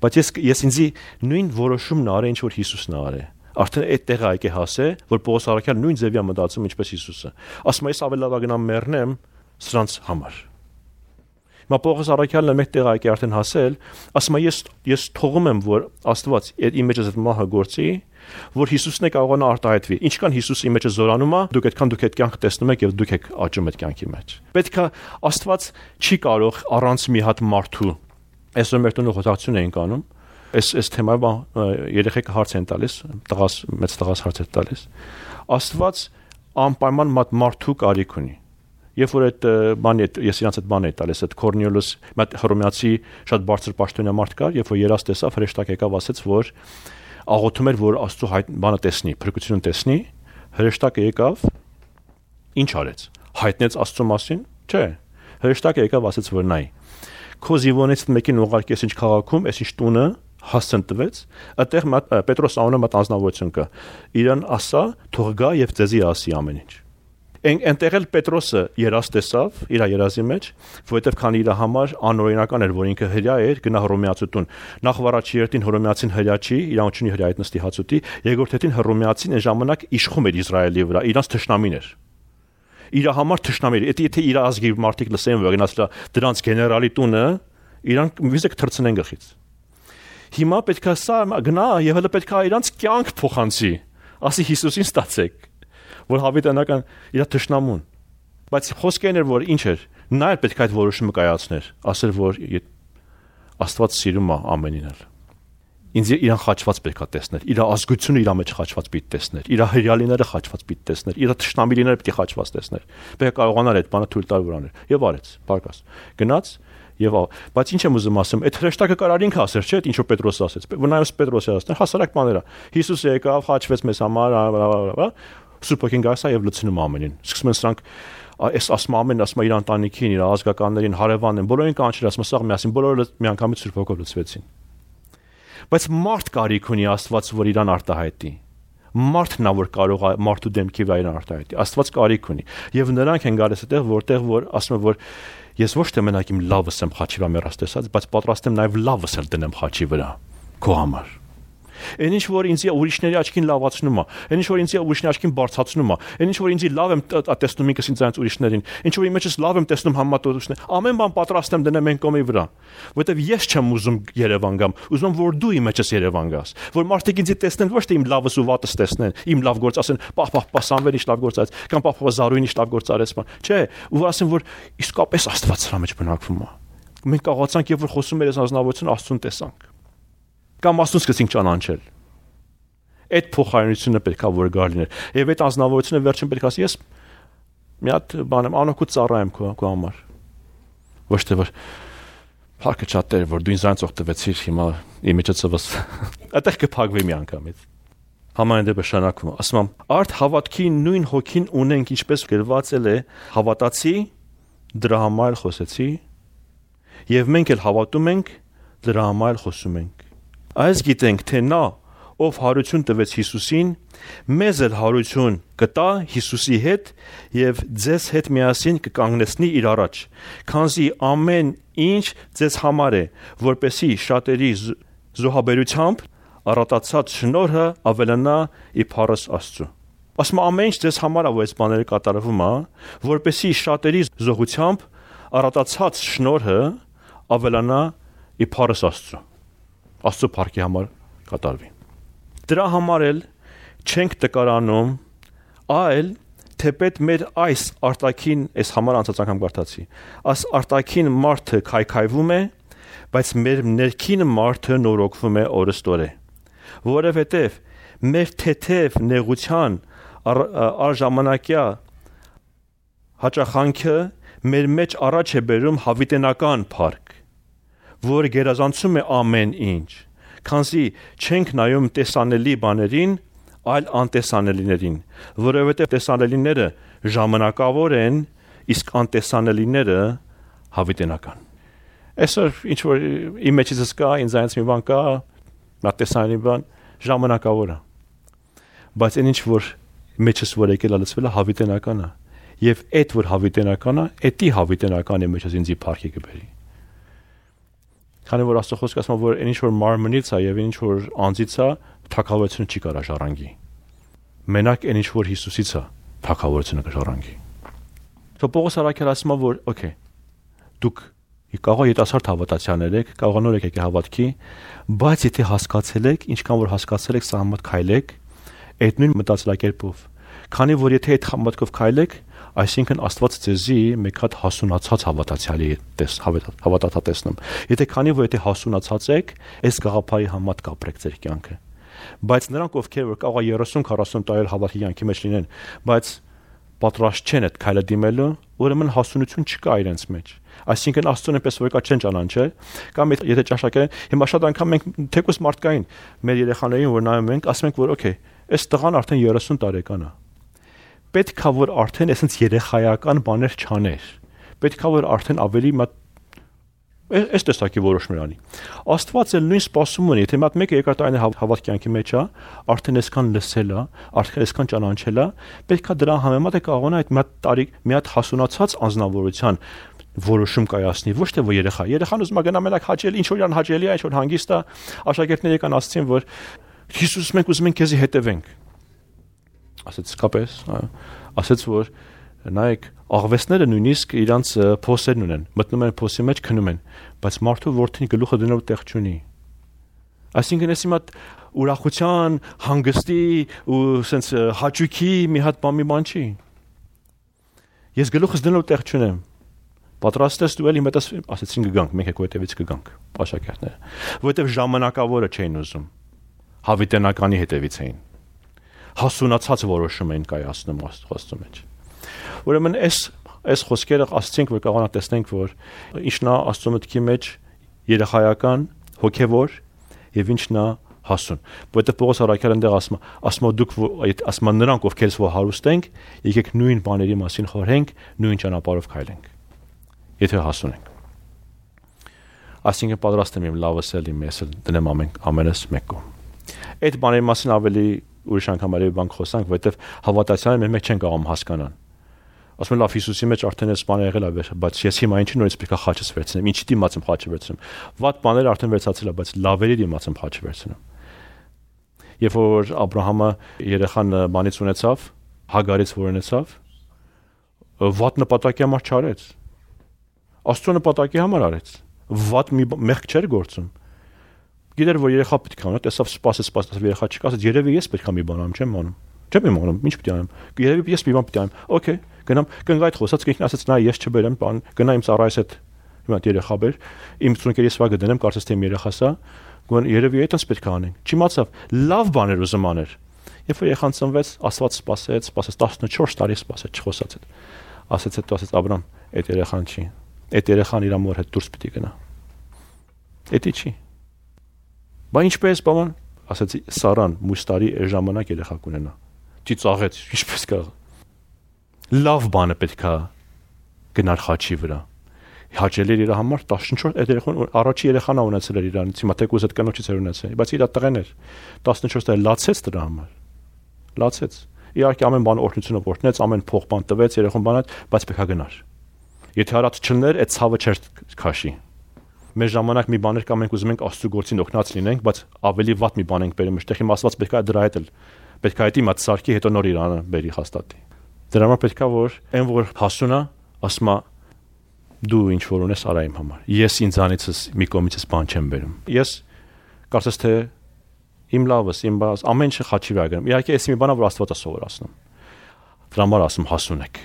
բայց ես ինձի նույն որոշումն արել, ինչ որ Հիսուսն արել։ Արդեն այդ տեղը այք է հասել, որ Պողոս առաքյալը նույն ձևի է մտածում, ինչպես Հիսուսը։ Ասում է, ես ավելի լավ գնամ մեռնեմ սրանց համար։ Հիմա Պողոս առաքյալն մեկ տեղ այք է արդեն հասել, ասում է, ես թողում եմ, որ Աստված իմ մեջս այդ մահը գործի, որ Հիսուսն է կարողանա արտահայտվի։ Ինչքան Հիսուսը իմ մեջը զորանում է, դուք այդքան դուք այդ կյանքը տեսնում եք եւ դուք եք աճում այդ կյանքի մեջ։ Պետք է Աստված չի կարող առանց մի հատ մարդու։ Այսօր մեր տունը խոսակցություն էին կանում։ Այս թեմայով երեխեքը հարց են տալիս, մեծ տղաս հարց է տալիս։ Աստված անպայման մարդու կարիք ունի։ Երբ որ այդ բանի ես իրանց այդ բանը տալիս, այդ Կորնելիոս, մատ հռոմեացի շատ բարձր պաշտոնյա մարդ կար, երբ որ երաս տեսավ, հրեշտակ եկավ, ասեց, որ աղոթում էր, որ Աստծո բանը տեսնի, փրկությունը տեսնի, հրեշտակը եկավ, ինչ արեց։ Հայտնեց Աստծո մասին։ Չէ։ Հրեշտակը եկավ, ասեց, որ նայ։ Քո զինվորներից մեկին ուղարկես ինչ քաղաքում, այս ինչ տունը հասցն տվեց, այդտեղ Պետրոս անունը մատ անձնավորություն կա։ Իրան ասա, թող գա եւ ձեզի ասի ամեն ինչ։ Այնտեղ էլ Պետրոսը երաս տեսավ իր երազի մեջ, որովհետև քանի իր համար անօրինական էր, որ ինքը հրյա էր, գնա հռոմեացու տուն։ Նախ վարաչի երթին հռոմեացին հրյա չի, իրանչունի հրյա այդ նստի հացուտի, երկրորդ հետին հռոմեացին այն ժամանակ իշխում էր Իսրայելի վրա, իրանց թշնամին էր։ Իր համար թշնամի էր, եթե իր ազգի մարդիկ լսեն, որ գնաց դրանց գեներալի տունը, իրանք վիզեք թրցնեն գլխից։ Հիմա պետքա սա գնա եւ հələ պետքա իրանց կյանք փոխանցի, ասի Հիսուսին ստացեք, որ հավիտենական իր թշնամուն։ Բայց խոսքն էր, որ ինչ էր, նա էլ պետք է այդ որոշումը կայացներ, ասել, որ Աստված սիրում է ամենին էլ։ Ինձ իրան խաչված պետք է տեսնել, իր ազգությունը իր մեջ խաչված պիտի տեսնել, իր հրյալիները խաչված պիտի տեսնել, իր թշնամիները պիտի խաչված տեսնել։ Պետք է կարողանար այդ բանը թույլ տալ վրաներ։ Եվ արեց, բարգաս։ Գնաց եւ բայց ինչ եմ ուզում ասեմ, այդ հրեշտակը կարար ինքը ասեր, չէ՞, ինչ որ Պետրոսը ասեց։ Վնայոս Պետրոսը ասել, հասարակ բաներ է։ Հիսուսը եկավ, խաչվեց մեզ համար, Սուրբոքին գասա եւ լցնում ամենին։ Սկսում են սրանք այս ասում ամեն ասում իր ընտանիքին, իր ազգականներին, հարևաններին, բոլորին կանչել, ասում սաղ միասին, բոլորը միանգամից Սուրբոքով լցվեցին։ Բայց մարդ կարիք ունի Աստված, որ իրան արտահայտի։ Մարդն է, որ կարող է մարդու դեմքի վրա իրան արտահայտի։ Աստված կարիք ունի։ Եվ նրանք են գալիս այդտեղ, որտեղ որ ասում են, որ ես ոչ թե մենակ իմ լավս եմ խաչի վրա մեռած տեսած, բայց պատրաստ եմ նաև լավս էլ դնեմ խաչի վրա քո համար։ Այն ինչ որ ինձ ուրիշների աչքին լավացնում է, այն ինչ որ ինձ ուրիշների աչքին բարձրացնում է, այն ինչ որ ինձ լավ եմ տեսնում ինքս ինձ ուրիշներին, ինչ որ իմ մեջս լավ եմ տեսնում համատորություններ, ամեն բան պատրաստ եմ դնեմ այն կողմի վրա, որովհետև ես չեմ ուզում Երևան գամ, ուզում եմ որ դու իմ մեջս Երևան գաս, որ մարդիկ ինձ տեսնեն ոչ թե իմ լավս ու վատս տեսնեն, իմ լավ գործ ասեն, պահ Սամվելը ինչ լավ գործ արեց, կամ պահ Զարուհին ինչ լավ գործ արեց, չէ, ու ասեն որ իսկապես Աստված սրա մեջ բնակվում է։ Մենք կարողացանք եւ որ խոսում էր այս ազնվորությունը Աստծուն տեսանք։ Կամ Աստծուն սկսեցինք ճանաչել։ Այդ փոխարինությունը պետք է որ գար լիներ։ Եվ այդ ազնվորությունը վերջին պետք է ասի, ես մի հատ բան եմ, անօգուտ ծառա եմ քո համար։ Ոչ թե որ փակը չատեր, որ դու ինձ այնց օգտվեցիր, հիմա իմիջացված։ Այդտեղ կփակվի մի անգամից։ Համայն դեպս շանակում, ասում եմ, արդ հավատքի նույն հոգին ունենք, ինչպես գրված է, հավատացի, դրա համար խոսեցի, եւ մենք էլ հավատում ենք, դրա համար խոսում ենք։ Այս գիտենք, թե նա, ով հարություն տվեց Հիսուսին, մեզ էլ հարություն կտա Հիսուսի հետ եւ ձեզ հետ միասին կկանգնեցնի իր առաջ, քանզի ամեն ինչ ձեզ համար է, որպեսի շատերի զոհաբերությամբ առատացած շնորհը ավելանա իբարս Աստծո։ Ասում ամեն ինչ ձեզ համար է, որ այս բաները կատարվում է, որպեսի շատերի զոհությամբ առատացած շնորհը ավելանա իբարս Աստծո։ Աստծո փառքի համար կատարվի։ Դրա համար էլ չենք տկարանում, այլ թեպետ մեր այս արտաքին, այս համար անցած անգամ կարդացի, այս արտաքին մարդը քայքայվում է, բայց մեր ներքին մարդը նորոգվում է օրստորե, որովհետև մեր թեթև նեղության առժամանակյա հաճախանքը մեր մեջ առաջ է բերում հավիտենական փառք, որ գերազանցում է ամեն ինչ, քանզի չենք նայում տեսանելի բաներին, այլ անտեսանելիներին, որովհետև տեսանելիները ժամանակավոր են, իսկ անտեսանելիները հավիտենական։ Այսօր ինչ որ իմ մեջից կա, ինձ այնց մի բան կա, նա տեսանելի բան ժամանակավոր է։ Բայց այն ինչ որ մեջից որ եկել լցվել է հավիտենական է, եւ այդ որ հավիտենական է, էդի հավիտենական է մեջից ինձի փառքի կբերի։ Քանի որ Աստծո խոսքը ասում է, որ այն ինչ որ մարմնից է եւ ինչ որ անձից է, թագավորությունը չի կարող ժառանգի։ Մենակ այն ինչ որ Հիսուսից է, թագավորությունը կժառանգի։ Պողոս առաքյալը ասում է, որ օքեյ, դուք կարող եք երիտասարդ հավատացյալներ եք, կարող նոր եք հավատքի, բայց եթե հասկացել եք, ինչքան որ հասկացել եք, սա համատ քայլեք, այդ նույն մտածելակերպով։ Քանի որ եթե այդ համատքով քայլեք, այսինքն Աստված ձեզի մեկ հատ հասունացած հավատացյալի հավատացնում։ Եթե քանի որ եթե հասունացած եք, այս գաղափարի համատ կապրեք ձեր կյանքը։ Բայց նրանք ովքեր որ կարող 30-40 տարի հավատքի կյանքի մեջ լինեն, բայց պատրաստ չեն այդ քայլը դիմելու, ուրեմն հասունություն չկա իրենց մեջ։ Այսինքն Աստծուն այնպես որ կա չեն ճանաչել, կամ եթե ճաշակեն, հիմա շատ անգամ մենք թեկուս մարդկային մեր երեխաներին որ նայում ենք, ասում ենք որ օքեյ, այս տղան արդեն 30 տարեկան է։ Պետք է որ արդեն այսպես երեխայական բաներ չաներ։ Պետք է որ արդեն ավելի այս տեսակի որոշումներ անի։ Աստված էլ նույն սպասում ունի, եթե մատ մեկը երկար տարի հավատքի կյանքի մեջ է, արդեն այսքան լսել է, արդեն այսքան ճանաչել է, պետք է դրա համեմատ է կարողանա այդ մի հատ հասունացած անձնավորության որոշում կայացնի, ոչ թե որ երեխան ուզում է գնա մենակ հաճելի, ինչ որ իրան հաճելի է, ինչ որ հանգիստ է, աշակերտները կան ասացին, որ Հիսուս մենք ուզում ենք քեզի հետևենք։ Ասեց կապես, ասեց որ նայեք աղվեսները նույնիսկ իրանց փոսերն ունեն, մտնում են փոսի մեջ, քնում են, բայց մարդու որդին գլուխը դնելու տեղ չունի։ Այսինքն էս հիմա ուրախության, հանգստի ու սենց հաճույքի մի հատ բան չի։ Ես գլուխս դնելու տեղ չունեմ։ Պատրաստ ես դու էլի մտած ասեցին կգանք, մենք եկու հետևից կգանք, աշակերտները, որովհետև ժամանակավորը չէին ուզում, հավիտենականի հետևից էին, հասունացած որոշում էին կայացնում Աստծո մեջ։ Ուրեմն այս խոսքերը ասացինք, որ կարողանա տեսնենք, որ ինչն է Աստծո մտքի մեջ երեխայական, հոգևոր եւ ինչն է հասուն։ Որովհետև Պողոս առաքյալը այնտեղ ասում է դուք ասում է նրանք ովքեր որ հարուստ ենք, եկեք նույն բաների մասին խորհենք, նույն ճանապարհով քայլենք։ Եթե հասուն ենք։ Այսինքն պատրաստ եմ լավս էլ իմ ես դնեմ ամենս մեկում։ Այդ բաների մասին ավելի ուրիշ անգամ ավելի բան խոսանք, որովհետև հավատացյալները մենք չեն կարող հասկանալ։ Ասում եմ լավ Հիսուսի մեջ արդեն այս բանը եղել է, բայց ես հիմա ինչի նորից պետք է խաչս վերցնեմ, ինչի դիմաց եմ խաչը վերցնում։ Վատ բաները արդեն վերցացել է, բայց լավերի դիմաց եմ խաչը վերցնում։ Երբ որ Աբրահամը երեխան բանից ունեցավ, Հագարից որ ունեցավ, վատ նպատակի համար չարեց։ Աստծո նպատակի համար արեց։ Վատ մի մեղք չէր գործում։ Գիտեր որ երեխա պետք է անա, տեսավ սպասեց երեխա չկա, ասաց երևի ես պետք է մի բան անում, չեմ անում։ Չեմ իմանում, ինչ պետք է անեմ։ Երևի ես մի բան պետք է անեմ։ Okay, գնամ, կնգայթ խոսած կինքն ասաց նա ես չբերեմ, բան, գնա իմ ծառայս հետ հիմա երեխա բեր, իմ ծունկերի սվագը դնեմ, կարծես թե իմ երեխասա, գոն երևի այդպես պետք է անենք։ Չիմացավ, լավ բաներ ուզում աներ։ Երբ որ երեխան ծնվեց, Աստված սպասեց 14 տարի սպասեց, չխոսած այդ։ Ասաց հետո ասաց Աբրամ, այդ երեխան չի։ Այդ երեխան իր մոր հետ դուրս պիտի գնա։ Էդի չի։ Բա ինչպես բան, ասացի Սարան մյուս տարի այս ժամանակ երեխա կունենա։ Ծիծաղեց, ինչպես կարող։ Լավ բանը պետքա գնար խաչի վրա։ Հաճելի էր իր համար 14 այդ երեխան առաջի երեխան ա ունեցել էր իրանից, հիմա թեկուզ այդ կնոջից էր ունեցել, բայց իր տղեն էր 14 տարի լացեց դրա համար։ Լացեց։ Իհարկե ամեն բան օրհնությունով օրհնեց, ամեն փող բան տվեց, երեխան բանած, բայց պետքա գնար։ Եթե հարած չլներ, այդ ցավը չէր քաշի։ Մեր ժամանակ մի բաներ կա մենք ուզում ենք Աստծո գործին օգնած լինենք, բայց ավելի վատ մի բան ենք բերում, այդտեղ հիմա Աստված պետքա դրա հետ էլ պետքա այդ իմաց սարքի հետո նոր իրանը բերի հաստատի։ Դրա համար պետքա որ այն որ հասունա, ասма դու ինչ որ ունես արա իմ համար։ Ես ինձանիցս մի կողմիցս բան չեմ բերում։ Ես կարծես թե իմ լավս, իմ բաս, ամեն ինչը խաչի վրա գնում։ Իհարկե, էս մի բան է, որ Աստված է սովորացնում։ Դրա համար ասում հասունեք։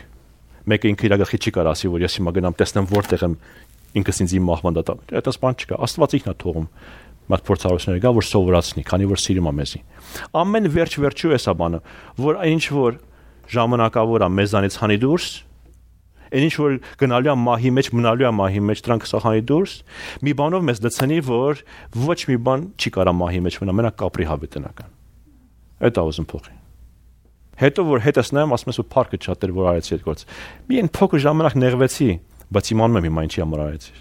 Մեկը ինքը իր գլխի չի կարող ասի, որ ես հիմա գնամ տեսնեմ որտեղ եմ ինքս ինձ իմ մահվան դատա։ Այդպես բան չկա։ Աստված ինքն է թողում մատ փորձառություններ գա, որ սովորացնի, քանի որ սիրում է մեզի։ Ամեն վերջ-վերջու էսա բանը, որ այն ինչ որ ժամանակավոր է մեզանից հանի դուրս, այն ինչ որ գնալու է մահի մեջ, մնալու է մահի մեջ, դրանք սահանի դուրս, մի բանով մեզ դցնի, որ ոչ մի բան չի կարա մահի մեջ մնա, մենակ կապրի հավիտենական։ Այդ է ուզում փոխի։ Հետո որ հետս նայեմ, ասում ես ու փառքը շատ էր որ արեցի այդ գործ։ Մի այն փոքր ժամանակ նեղվեցի, բայց իմանում եմ հիմա ինչի համար արեցի։